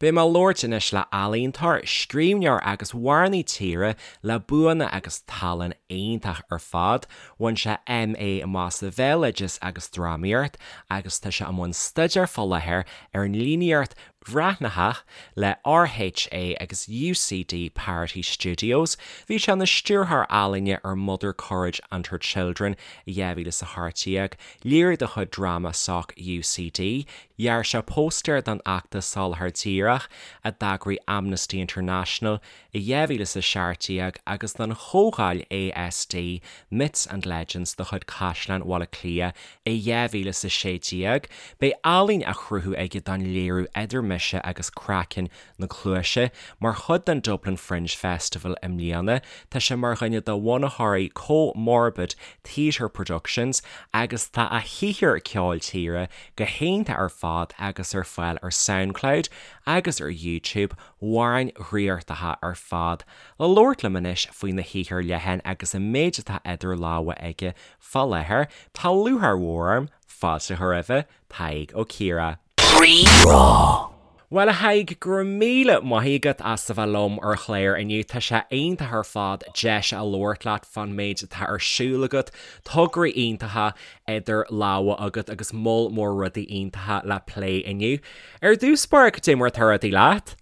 Beidh mé ag labhairt anois le ealaíontóir, scríbhneoir agus amhránaí tíre le buanna agus tallann iontach ar fad. Bhain sé MA amach sa Bhéaloideas agus Drámaíocht agus tá sé i mbun staidéir fá láthair ar an líníocht bhreathnaitheach le RHA agus UCD Parity Studios. Bhí sé ina stiúrthóir ealaíne ar Mother Courage and Her Children i 2018, léiriú de chuid DramaSoc UCD. Dhear sé póstaer don fheachtas Soláthar Díreach a d'eagraigh Amnesty International i 2017 agus don chomhdháil ASD Myths and Legends de chuid Caisleán Bhaile Átha Cliath i 2016. Beidh ealaín á chruthú aige don léiriú Idir Mise agus Craiceann na Cluaise mar chuid den Dublin Fringe Festival i mbliana. Tá sé mar dhuine de bhunaitheoirí Co-Morbid Theatre Productions agus tá a shaothar ceoil tíre go hiontach ar fad agus ar fáil ar Soundcloud agus ar YouTube, amhráin dhraíochtacha ar fad. Le labhairt liom anois faoina shaothar leathan agus an méid atá idir lámha aige fá láthair, tá lúcháir mhór orm fáilte a chur roimhe, Tadhg Ó Ciardha. Rí-Rá. Bhuel, a Thaidhg, go raibh míle maith agat as a bheith liom ar an chlár inniu. Tá sé iontach ar fad deis a labhairt leat fán méid atá ar siúl agat, tograí iontacha idir lámha agat agus moll mór rudaí iontacha le plé inniu. Ar dtús báire, cad é mar atá rudaí leat?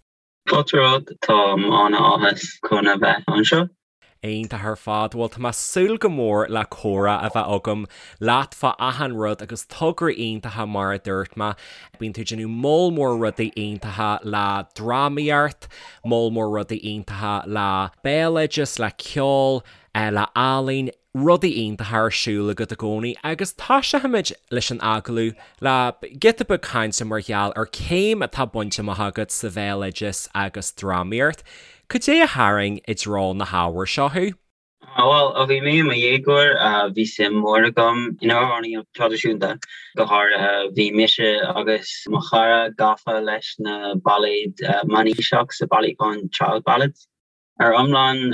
Fáilte romhat, táim an-áthas chun a bheith anseo. Iontach ar fad. Bhuel, tá mé ag súil go mór le comhrá a bheith agam leat fá achan rud agus tograí iontacha mar a dúirt mé. Bíonn tú ag déanamh moll mór rudaí iontacha le drámaíocht, moll mór rudaí iontacha le béaloideas, le ceol, le ealaín, rudaí iontacha ar siúl agat i gcónaí agus toiseochaimid leis an agallamh le giota beag cainte mar gheall ar céim atá bainte amach agat sa bhéaloideas agus drámaíocht. Cad é a tharraing i dtreo na hábhair seo thú? Bhuel, ó bhí mé i mo dhéagóir, bhí suim mhór agam in amhránaíocht traidisiúnta. Go háirithe, bhí mise agus mo chara gafa leis na bailéid mionaoiseach sa bailiúchán Child Ballads. Ar iomlán,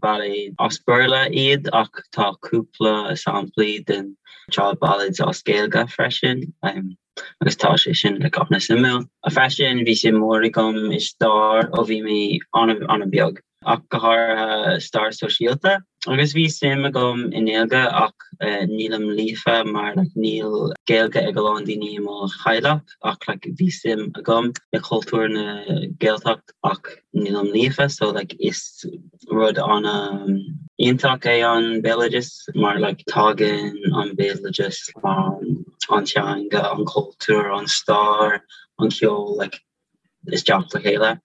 bailéid as Béarla iad ach tá cúpla samplaí den Child Ballads as Gaeilge freisin. agus tá sé sin like an-suimiúil. Freisin bhí suim mhór agam i stair ó bhí mé an-an-bheag, ach go háirithe stair sóisialta. Agus bhí suim agam i nGaeilge ach nílim líofa mar like níl Gaeilge ag a lán daoine i mo theaghlach ach like bhí suim agam i cultúr na Gaeltacht ach nílim líofa so like is rud an-iontach é an béaloideas mar like tagann an béaloideas an teanga, an cultúr, an stair, an ceol like isteach le chéile.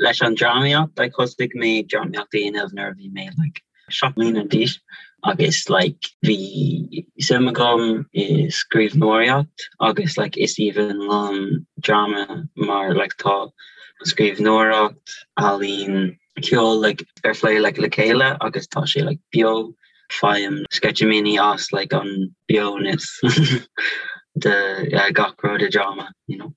Leis an drámaíocht like thosaigh mé drámaíocht a dhéanamh nuair a bhí mé like 7 mbliana d'aois agus like bhí suim agam i scríbhneoireacht agus like is aoibhinn liom dráma mar like tá scríbhneoireacht, ealaín, ceol like ar phlé like le chéile agus tá sé like beo, faighim sceitimíní as like an beonas de gach rud i dráma you know.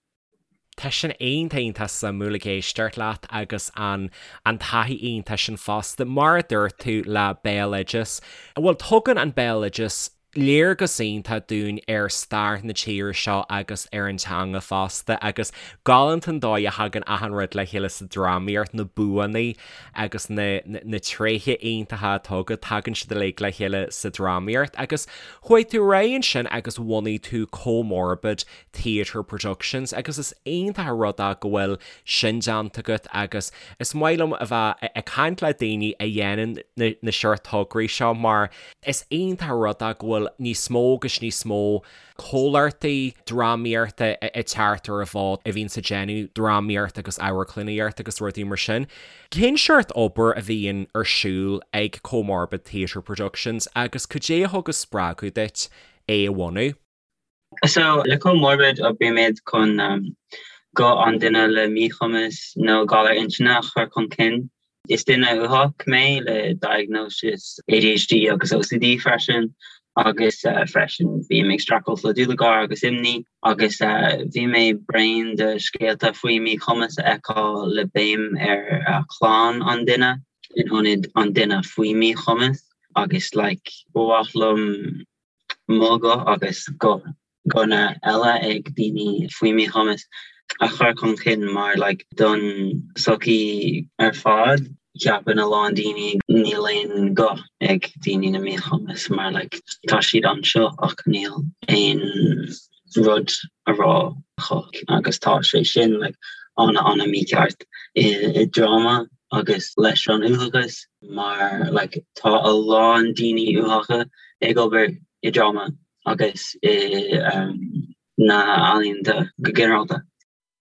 Tá sin iontach iontach suimiúil ag éisteacht leat agus an an taithí iontach sin fosta, mar a dúirt tú le béaloideas, bhuel tugann an béaloideas léargas iontach dúinn ar stair na tíre seo agus ar an teanga fosta agus galánta an dóigh a thagann achan rud le chéile sa drámaíocht, na buanna agus na na tréithe iontacha atá agat, tagann siad uilig le chéile sa drámaíocht agus chuaigh tú ar aghaidh ansin agus bhunaigh tú Co-Morbid Theatre Productions agus is iontach an rud é go bhfuil sin déanta agat agus is maith liom a bheith ag caint le daoine a dhéanann na seort tograí seo mar is iontach an rud é go bhfuil níos mó agus níos mó comhlachtaí drámaíochta ag teacht ar an bhfód a bhíonns ag déanamh drámaíocht agus amharclannaíocht agus rudaí mar sin. Cén seort obair a bhíonn ar siúl ag Co-Morbid Theatre Productions agus cad é a thug an spreagadh duit é a bhunú? So, le Co-Morbid oibrímid chun guth an duine le míchumas nó galar intinne a chur chun cinn. Is duine uathach mé le diagnosis ADHD agus OCD freisin agus freisin bím ag streachailt le dúlagar agus imní agus bhí mé bréan de scéalta faoi míchumas a fheiceáil le béim ar chlann an duine in ionad an duine faoi míchumas agus like ba mhaith liom mo ghuth agus guthanna eile ag daoine faoi mhíchumas. a chur chun cinn mar like don sochaí ar fad ceapann a lán daoine níl aon guth ag daoine le míchumas mar like tá siad anseo ach níl aon rud a rá acu agus tá sé sin like ana ana mícheart i i dráma agus leis an uathachas mar like tá a lán daoine uathacha ag obair i dráma agus i um, na ealaíonta go ginearálta.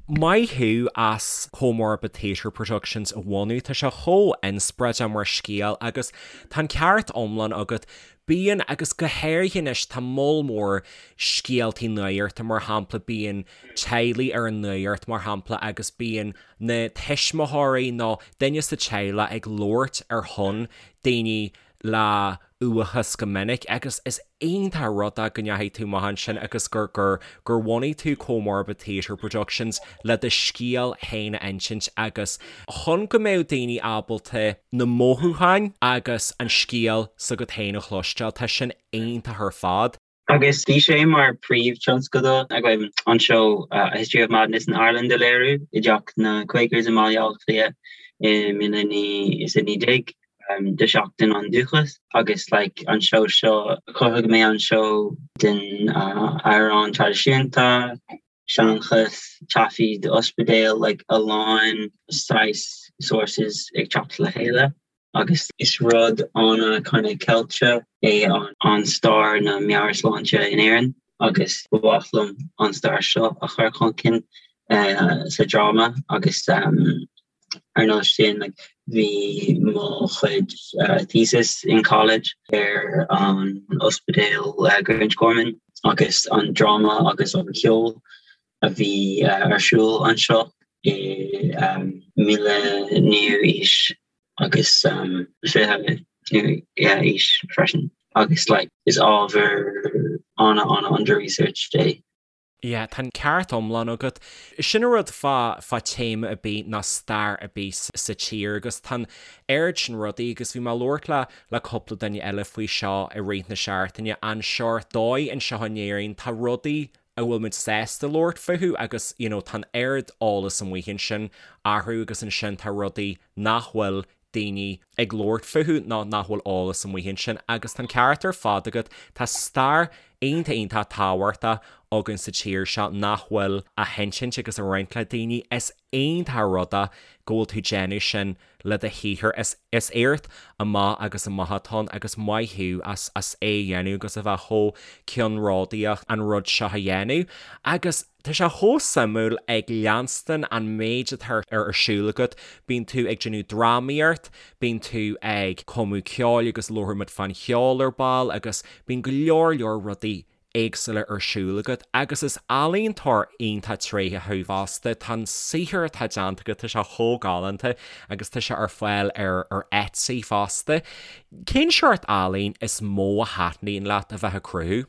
Maith thú as Comorbid Theatre Productions a bhunú, tá sé chomh inspioráideach mar scéal agus tá an ceart iomlán agat, bíonn agus go háirithe anois tá moll mór scéaltaí nuachta mar shampla bíonn teaghlaigh ar an nuacht mar shampla agus bíonn na tuismitheoirí nó duine sa teaghlach ag labhairt ar shon daoine le uathachas go minic agus is iontach an rud é go ndeachaigh tú amach ansin agus gur gur gur bhunaigh tú Comorbid Theatre Productions le do scéal féin a insint agus chun go mbeadh daoine ábalta na mothúcháin agus an scéal s'agat féin a chloisteáil. Tá sin iontach ar fad. Agus bhí sé mar príomhthionscadal againn an seó A History of Madness in Ireland a léiriú i dTeach na Quakers i mBaile Átha Cliath i 2019 do Sheachtain an Dúchais agus like an seó seo chruthaigh mé an seó den amhrán traidisiúnta, seanchas, taifid ospidéal, like a lán saghas sources ag teacht le chéile. agus is rud ana kind of ceilte é an stair na meabhairshláinte in Éirinn agus ba mhaith liom an stair seo a chur chun cinn sa dráma agus ar nós sin like bhí mo chuid thesis in college ar an ospidéal Grangegorman agus an dráma agus an ceol a bhí ar siúl anseo i 19ú aois agus 20ú aois freisin agus like is ábhar ana ana under researched é. Yeah, tá an ceart iomlán agat. Sin an rud fá fá téama ar bith nó stair ar bith sa tír agus tá an oiread sin rudaí agus bhí mé ag labhairt le le cúpla duine eile faoi seo i rith na seachtaine, an seort dóigh anseo in Éirinn tá rudaí a bhfuil muid sásta labhairt fúthu agus you know tá an oiread eolas amuigh ansin orthu agus ansin tá rudaí nach bhfuil daoine ag labhairt fúthu nó nach bhfuil eolas amuigh ansin agus tá an ceart ar fad agat, tá stair iontach iontach tábhachtach againn sa tír seo nach bhfuil á hinsint agus á roinnt le daoine. Is iontach an rud é go bhfuil tú ag déanamh sin le do shaothar. Is is éacht amach agus amach atá ann agus maith thú as as é a dhéanamh agus a bheith chomh ceannródaíoch an rud seo a dhéanamh. Agus tá sé chomh suimiúil ag leanstan an méid atá ar siúl agat, bíonn tú ag déanamh drámaíocht, bíonn tú ag cumadh ceoil agus labharfaidh muid fán cheol ar ball agus bíonn go leor leor rudaí éagsúla ar siúl agat agus is ealaíontóir iontach tréitheach thú fosta. Tá an saothar atá déanta agat, tá sé chomh galánta agus tá sé ar fáil ar ar Etsy fosta. Cén seort ealaín is mó a thaitníonn leat a bheith ag cruthú?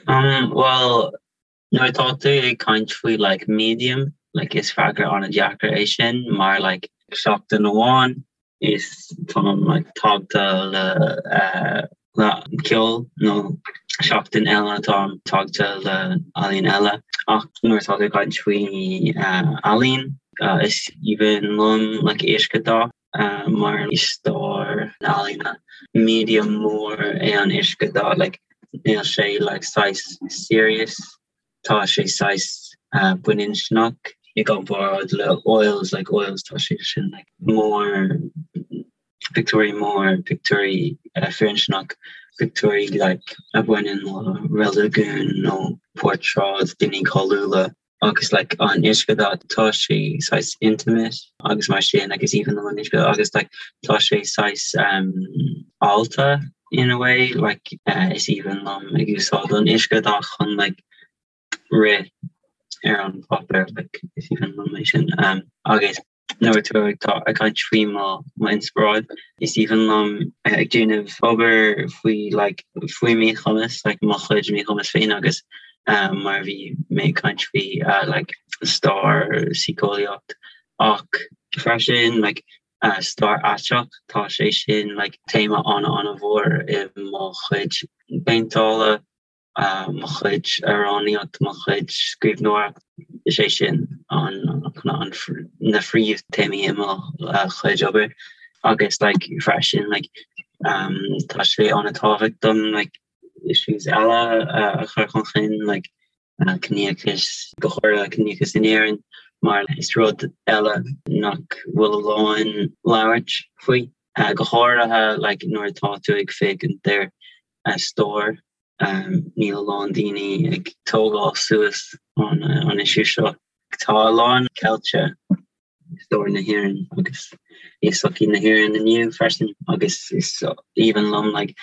Um, well, nuair atá tú ag caint faoi like medium, like is freagra an-deacair é sin mar like seachtain amháin is táim like tagtha le eh, le ceol nó seachtain eile táim tagtha le ealaín eile ach nuair atá tú ag caint faoi eh, ealaín eh, is aoibhinn liom like uiscedhath eh, mar i stair na ealaíne medium mór é an uiscedhath like níl sé like saghas serious tá sé saghas baininsneach i gcomparáid le oils like oils tá sé sin like mór pictiúirí mór pictiúirí firinsneach pictiúirí like a bhaineann le reiligiún nó portráid daoine cáiliúla agus like an uiscedhath tá sé saghas intimate agus mar sin agus even an uiscedhath agus like tá sé saghas um, allta in a way like uh, is aoibhinn liom ag úsáid an uiscedhath chun like rith ar an páipéar like is aoibhinn liom é sin um, agus nuair atá ag tá ag caint faoi mo mo inspioráid is aoibhinn liom ag déanamh obair faoi like faoi míchumas like mo chuid míchumas féin agus um, mar bhí mé ag caint faoi uh, like stair síceolaíocht ach freisin like uh, stair aiteach tá sé sin like téama an an-mhór i mo chuid péinteála uh, mo chuid amhránaíocht mo chuid scríbhneoireacht. Is é sin an an na phríomhthéamaí i mo chuid obair agus like freisin like tá sé an-tábhachtach dom like issues eile a chur chun cinn like ciníochas, go háirithe ciníochas in Éirinn mar is rud eile nach bhfuil a lán labhairt faoi, go háirithe like nuair atá tú ag féachaint ar stair níl a lán daoine ag tógáil suas an issue seo. Tá a lán ceilte i stair na hÉireann agus i sochaí na hÉireann inniu freisin agus is aoibhinn liom like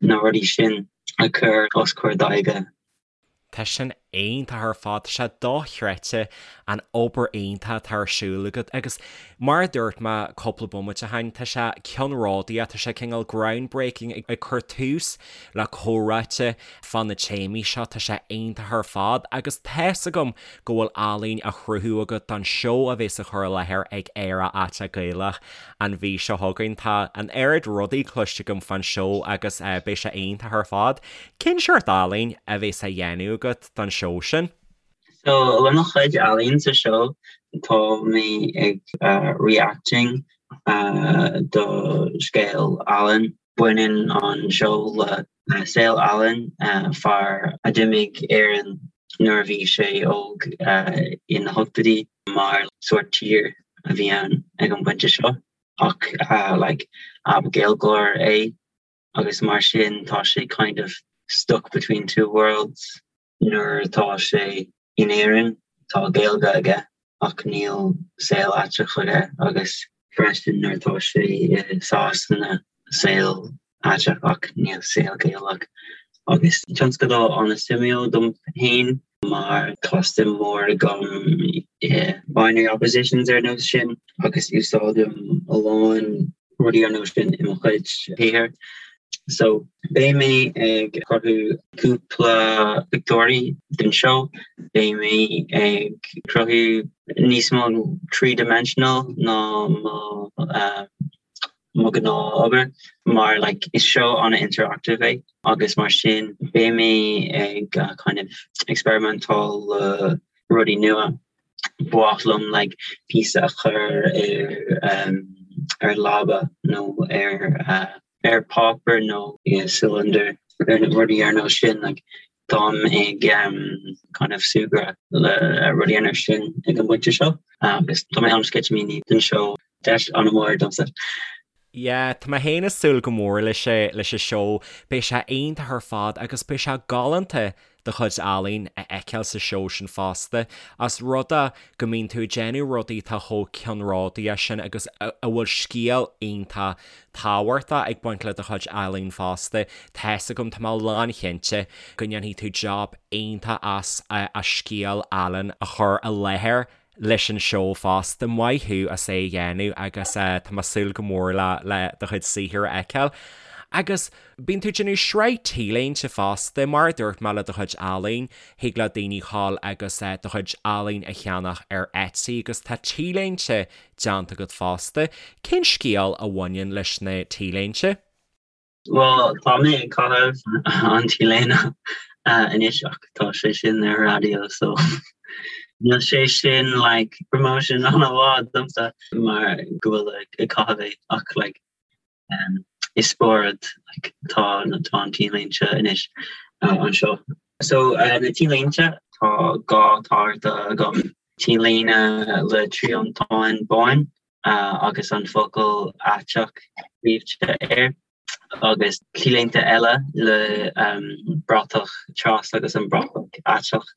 na rudaí sin a chur os comhair d'aghaidhe. Tá sin iontach ar fad, tá sé dochreidte an obair iontach atá ar siúl agat agus mar a dúirt mé cúpla bomaite ó shin, tá sé ceannródaíoch, tá sé cineál groundbreaking ag cur tús le comhráite fá na téamaí seo, tá sé iontach ar fad agus tá's agam go bhfuil ealaín á chruthú agat don seó a bheas á chur i láthair ag Éire Aiteach Gaelach an mhí seo chugainn. Tá an oiread rudaí cloiste agam fán seó agus beidh sé iontach ar fad. Cén seort ealaín a bheas á dhéanamh agat don seó sin? So le mo chuid ealaín sa seó tá mé ag reacting do scéal Alan. Baineann an seó le saol Alan, fear a d'imigh Éirinn nuair a bhí sé óg ina hochtóidí mar sórt tír a bhí ann ag an bpointe seo ach like ab Gaeilgeoir é. agus mar sin tá sé kind of stuck between two worlds nuair atá sé in Éirinn tá Gaeilge aige ach níl saol aiteach aige agus freisin nuair atá sé i Sasana saol aiteach ach níl saol Gaelach agus tionscadal an-suimiúil dom féin mar tá suim mhór agam i binary oppositions ar nós sin agus úsáidim a lán rudaí ar nós sin i mo chuid shaothair. So beidh mé ag cruthú cúpla pictiúirí den seó, beidh mé ag cruthú níos mó three-dimensional ná mo mo ghnáth-obair mar like is seó an-interactive é agus mar sin beidh mé ag kind of experimentáil le rudaí nua. Ba mhaith liom like píosa a chur ar um, ar leaba nó ar uh, ar páipéar nó i cylinder ar na rudaí ar nós sin like táim ag um, kind of súgradh le rudaí ar nós sin ag an bpointe seo agus tá mé an-sceitimíní don seó deis an-mhór domsa. Yeah, tá mé féin ag súil go mór leis leis an seó, beidh sé iontach ar fad agus beidh sé galánta do chuid ealaín a fheiceáil sa seó sin fosta, os rud é go mbíonn tú ag déanamh rudaí atá chomh ceannródaíoch sin agus a bhfuil scéal iontach tábhachtach ag baint le do chuid ealaín fosta. Tá's agam, tá mé lánchinnte go ndéanfaidh tú job iontach as as scéal Alan a chur i láthair leis an seó fosta. Maith thú as é a dhéanamh agus tá mé ag súil go mór le le do chuid saothair a fheiceáil. Agus bíonn tú ag déanamh sraith T-léinte fosta, mar a dúirt mé le do chuid ealaín, thig le daoine dhul agus do chuid ealaín a cheannach ar Etsy agus tá T-léinte déanta agat fosta. Cén scéal a bhaineann leis na T-léinte? Bhuel, tá mé ag caitheamh an T-léine anois ach tá sé sin ar raidió so níl sé sin like promotion an-mhaith domsa mar go bhfuil ag caitheamh é ach like um, i spiorad like, tá tá an T-léinte anois uh, anseo. So uh, na T-léinte tá gá táirte agam T-léine le triantán bán agus an focal aiteach scríte air, agus T-léinte eile le bratach tras agus an bratach aiteach,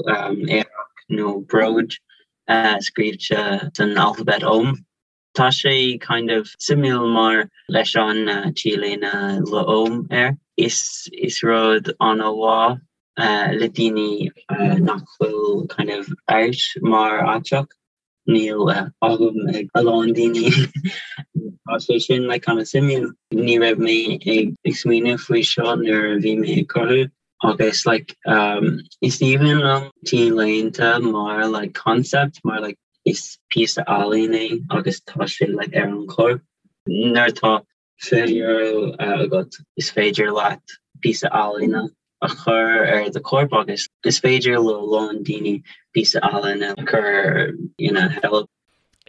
aerach nó bród scríte san alphabet Ogham. Tá sé kind of suimiúil mar leis an T-léine le Ogham air, is is rud an-mhaith le daoine nach bhfuil kind of out mar aiteach. Níl agam ag a lán daoine. Tá sé sin like kind of suimiúil. Ní raibh mé ag smaoineamh faoi seo nuair a bhí mé ag cruthú agus like um, is aoibhinn liom T-léinte mar like concept mar like is píosa ealaín é agus tá sé like ar an chorp. Nuair atá €20 agat is féidir leat píosa ealaíne. a chur ar do chorp agus is féidir le a lán daoine píosa ealaíne a chur ina sheilbh.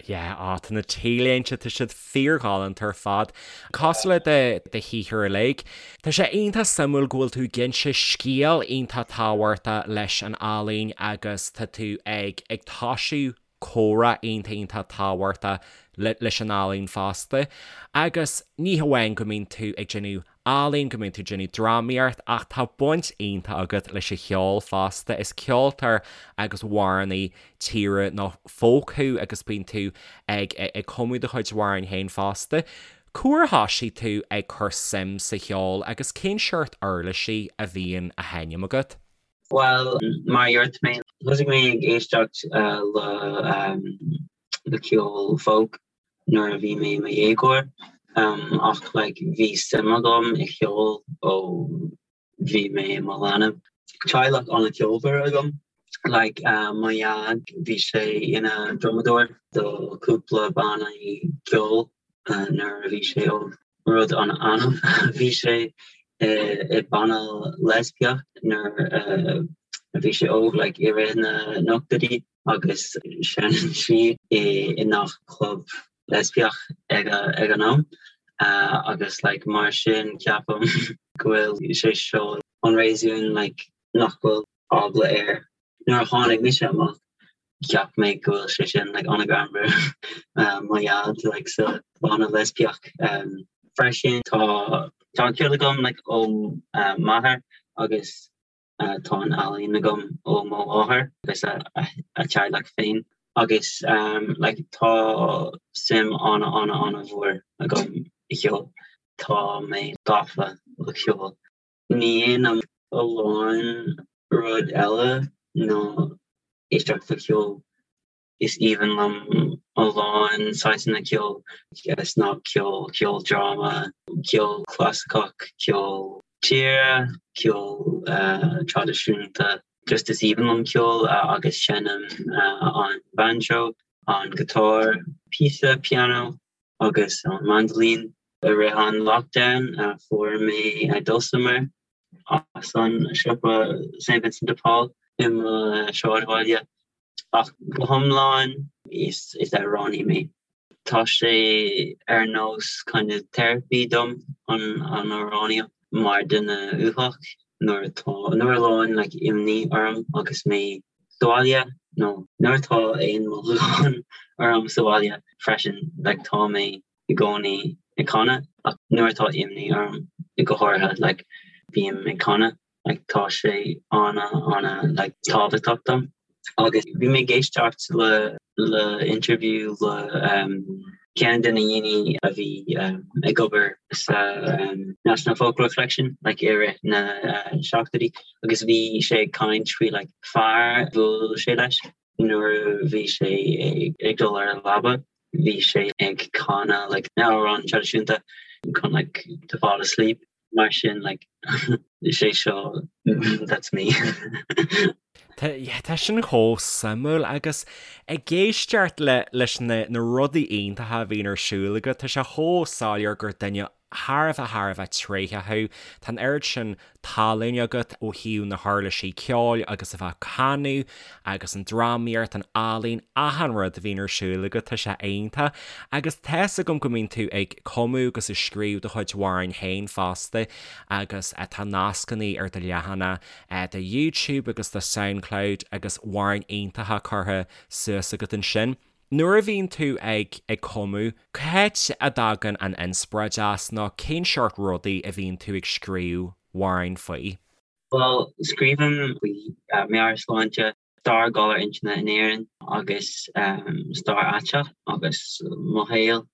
Yeah, á, tá na T-léinte, tá siad fíorghalánta ar fad. Cosúil le do do shaothar uilig. Tá sé iontach suimiúil go bhfuil tú ag inse scéal iontach tábhachtach leis an ealaín agus tá tú ag ag toisiú comhrá iontach iontach tábhachtach leis an ealaín fosta. Agus ní hamháin go mbíonn tú ag déanamh ealaín, go mbíonn tú ag déanamh drámaíocht ach tá baint iontach agat leis an cheol fosta. Is ceoltóir agus amhránaí tíre nó folk thú agus bíonn tú ag ag cumadh do chuid amhráin féin fosta. Cá huair a thoisigh tú ag cur suim sa cheol agus cén seort uirlisí a bhíonn á sheinm agat? Bhuel, mar a dúirt mé, thosaigh mé ag éisteacht le ceol folk nuair a bhí mé i mo dhéagóir ach like bhí suim agam i cheol ó bhí mé i mo leanbh. Teaghlach an-cheolmhar agam. Like mo dhaid bhí sé ina dhrumadóir do cúpla bannaí ceoil nuair a bhí sé óg. Rud an-annamh bhí sé i banna leispiach nuair a bhí sé óg like i rith na n-ochtóidí agus sheinneann sí i ngach club leispiach ag ag an am agus like mar sin ceapaim go bhfuil sé seo an réasún like nach bhfuil eagla air. Nuair a tháinig mise amach cheap mé go bhfuil sé sin like an-ghreannmhar mo dhaid like sa bhanna leispiach. Freisin tá tá an ceol agam like ó m'athair agus tá an ealaín agam ó mo mháthair agus a teaghlach féin agus like tá suim ana ana ana mhór agam i cheol. Tá mé gafa le ceol. Ní dhéanaim a lán rud eile ná éisteacht le ceol. Is aoibhinn liom a lán saghsanna ceoil, snagcheol, ceoldráma, ceol clasaiceach, ceol tíre, ceol traidisiúnta. Just is aoibhinn liom ceol agus seinnim an banjo, an guitar, píosa pianó agus an mandolin. I rith an lockdown fuair mé dulcimer as an siopa St Vincent de Paul i mo shráidbhaile. Ach go hiomlán is amhránaí mé. Tá sé ar nós kind of therapy dom an amhránaíocht mar duine uathach nuair atá nuair a lán like imní orm agus mé sa bhaile nó nuair atá aon mhothúchán orm sa bhaile freisin like tá mé i gcónaí ag canadh ach nuair atá imní orm go háirithe like bím ag canadh. like tá sé ana ana like tábhachtach dom. Agus bhí mé ag éisteacht le le interview le um ceann de na daoine a bhí um ag obair sa um National Folklore Collection like i rith na uh seachtóidí agus bhí sé ag caint faoi like fear bhuail sé leis nuair a bhí sé ag dul ar an leaba bhí sé ag canadh like na amhráin traidisiúnta chun like to fall asleep. Mar sin like sé seo that's me. Tá sin chomh suimiúil agus ag éisteacht le leis na na rudaí iontacha a bhíonn ar siúl agat, tá sé chomh soiléir gur duine thar a bheith thar a bheith tréitheach thú. Tá an oiread sin tallann agat ó thaobh na huirlisí ceoil agus a bheith ag canadh agus an drámaíocht, an ealaín, achan rud a bhíonn ar siúl agat, tá sé iontach. Agus tá's agam go mbíonn tú ag cumadh agus ag scríobh do chuid amhráin féin fosta agus tá nascanna ar do leathanach do YouTube agus do Soundcloud agus amhráin iontacha curtha suas agat ansin. Nuair a bhíonn tú ag ag cumadh, cá háit a dtagann an inspioráid as nó cén seort rudaí a bhíonn tú ag scríobh amhráin faoi? Bhuel, scríobhaim faoi meabhairshláinte, stair galar intinne in Éirinn agus stair aiteach agus mo shaol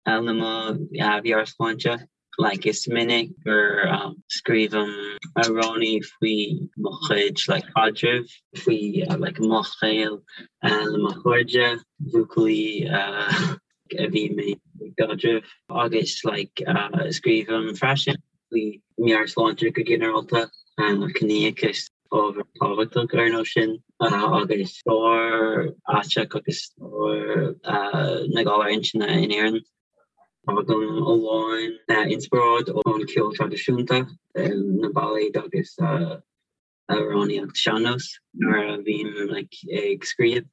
le mo mheabhairshláinte. Like is minic gur scríobhaim amhráin faoi mo chuid like caidrimh, faoi like mo shaol le mo chairde, buachaillí a bhí mé i gcaidreamh agus like scríobhaim freisin faoi meabhairshláinte go ginearálta, ciníochas, ábhar tábhachtach ar nós sin agus stair aiteach agus stair na galar intinne in Éirinn. Faighim a lán inspioráid ón ceol traidisiúnta, na bailéid agus amhránaíocht sean-nós nuair a bhím like ag scríobh.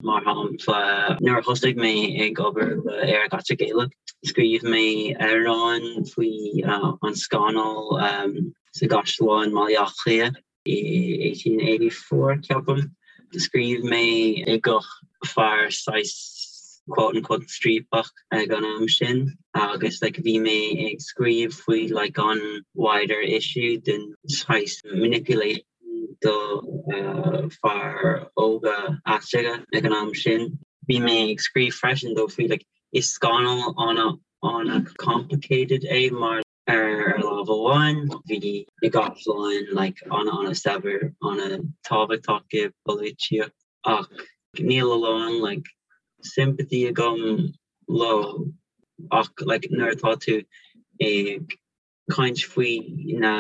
Mar shampla, nuair a thosaigh mé ag obair le Aerach Aiteach Gaelach, scríobh mé amhrán faoi an scannal sa gcaisleán i mBaile Átha Cliath i 1884, ceapaim. Scríobh mé i guth fear saghas quote unquote striapach ag an am sin agus like bhí mé ag scríobh faoi like an wider issue den saghas manipulation do fear óga aiteacha ag an am sin. Bhí mé ag scríobh freisin dó faoi like is scannal ana ana complicated é mar ar lámh amháin bhí na gcaisleáin like ana ana saibhir ana tábhachtach i bpolaitíocht ach níl a lán like sympathy agam leo ach like nuair atá tú ag caint faoi na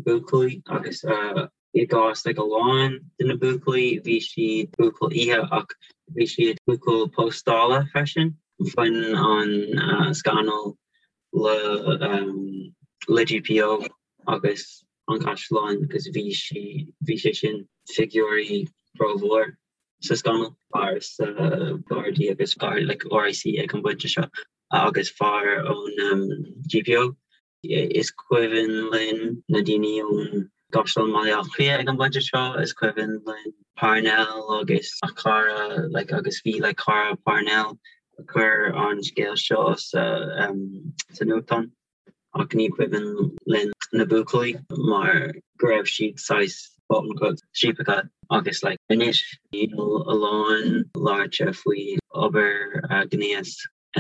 buachaillí agus i gcás like a lán de na buachaillí bhí siad buachaill oíche ach bhí siad buachaill póstála freisin. Bhain an scannal le le GPO agus an caisleán agus bhí sí bhí sé sin figiúirí rómhór sa scannal. Fear sa Gardaí agus like RIC ag an bpointe seo agus fear ón GPO. Is cuimhin linn na daoine ón gCaisleán Bhaile Átha Cliath ag an bpointe seo, is cuimhin linn Parnell agus a chara like agus bhí like cara Parnell a chuir an scéal seo sa sa nuachtán ach ní cuimhin linn na buachaillí mar go raibh siad saghas quote unquote striapacha agus like anois níl a lán labhairte faoi obair ghnéas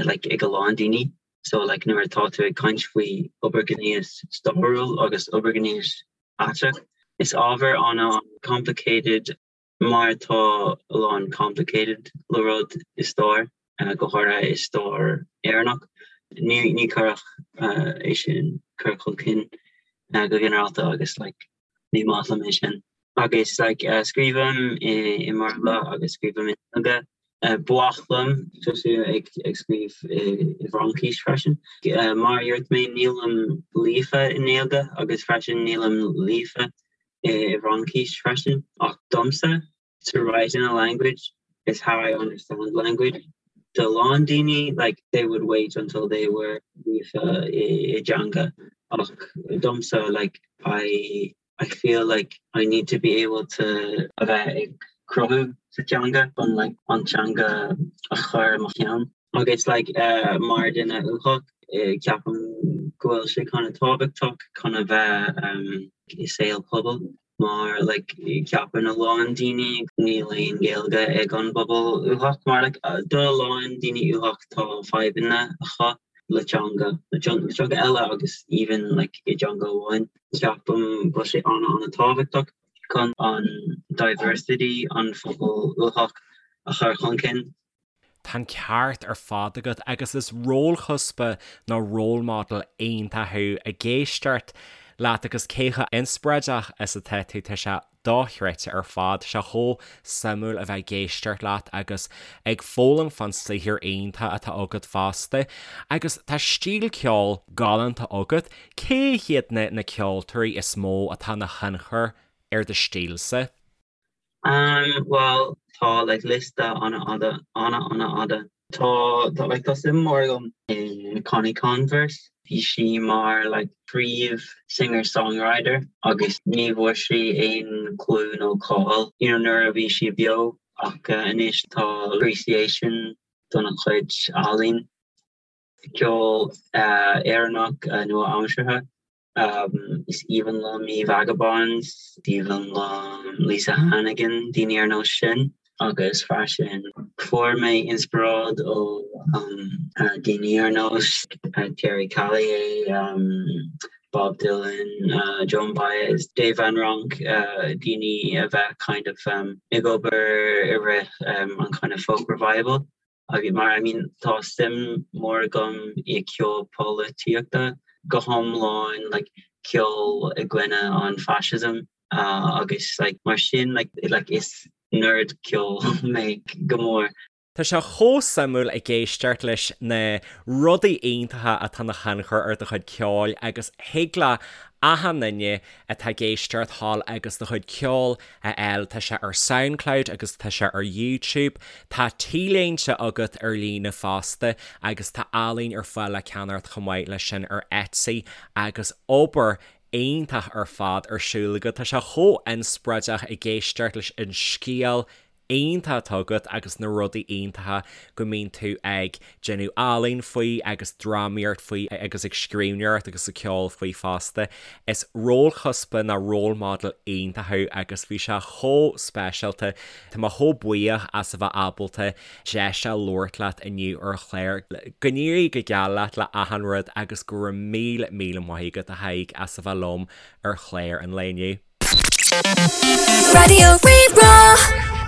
like ag a lán daoine so like nuair atá tú ag caint faoi obair ghnéas stairiúil agus obair ghnéas aiteach is ábhar ana complicated mar tá a lán complicated le rud i stair go háirithe i stair Éireannach ní ní cuireadh é sin cur chun cinn go ginearálta agus like ní maith liom é sin. Agus like scríobhaim i i mBéarla agus scríobhaim i nGaeilge. Ba mhaith liom tosú ag ag scríobh i i bhFraincis freisin. Mar a dúirt mé nílim líofa i nGaeilge agus freisin nílim líofa i bhFraincis freisin ach domsa to write in a language is how I understand language. Do a lán daoine like they would wait until they were líofa i i dteanga ach domsa like I I feel like I need to be able to a bheith ag cruthú sa teanga chun like an teanga a chur i mo cheann. Agus like uh, mar duine uathach ceapaim go bhfuil sé kind of tábhachtach chun a bheith um, i saol pobail mar like ceapann a lán daoine níl aon Ghaeilge ag an bpobal uathach mar like do a lán daoine uathach tá fadhbanna acu le teanga le teanga eile agus even like i dteanga amháin. Ceapaim go bhfuil sé ana ana tábhachtach chun an diversity an phobal uathach a chur chun cinn. Tá an ceart ar fad agat agus is rólchuspa nó role model iontach thú ag éisteacht leat agus cé chomh inspioráideach is atá tú, tá sé dochreidte ar fad, tá sé chomh suimiúil a bheith ag éisteacht leat agus ag foghlaim fán saothar iontach atá agat fosta. Agus tá stíl ceoil galánta agat, cé hiad na na ceoltóirí is mó atá ina thionchar ar do stílsa? Um bhuel tá like liosta an-fhada, an-an-fhada. Tá tá like tá suim mór agam in Connie Converse. Bhí sí mar like príomh singer songwriter agus ní bhfuair sí aon clú nó cáil you know nuair a bhí sí beo ach anois tá appreciation dona cuid ealaín. Ceol Éireannach nua-aimseartha. Is aoibhinn liom í Vagabonds, is aoibhinn liom Lisa Hannigan, daoine ar nós sin. Agus freisin fuair mé inspioráid ó daoine ar nós Terry Callier, Bob Dylan, Joan Baez, Dave Van Ronk, daoine a bheith kind of ag obair i rith an kind of folk revival. Agus mar I mean tá suim mór agam i ceol polaitíochta, go hiomlán like ceol i gcoinne an fascism agus like mar sin like like is nerd ceol mé go mór. Tá sé chomh suimiúil ag éisteacht leis na rudaí iontacha atá ina thionchar ar do chuid ceoil agus thig le achan duine atá ag éisteacht thall agus do chuid ceoil a fháil. Tá sé ar Soundcloud agus tá sé ar YouTube. Tá t-léinte agat ar líne fosta agus tá ealaín ar fáil le ceannacht chomh maith leis sin ar Etsy agus obair iontach ar fad ar siúl agat. Tá sé chomh inspioráideach ag éisteacht leis an scéal iontach atá agat agus na rudaí iontacha go mbíonn tú ag déanamh ealaín faoi agus drámaíocht faoi agus ag scríbhneoireacht agus ag ceol faoi fosta. Is rólchuspa nó role model iontach thú agus bhí sé chomh speisialta. Tá mé chomh buíoch as a bheith ábalta deis a labhairt leat inniu ar an chlár. Go n-éirí go geal leat le achan rud agus go raibh míle míle maith agat a Thaidhg as a bheith liom ar chlár an lae inniu. Raidió Rí-Rá.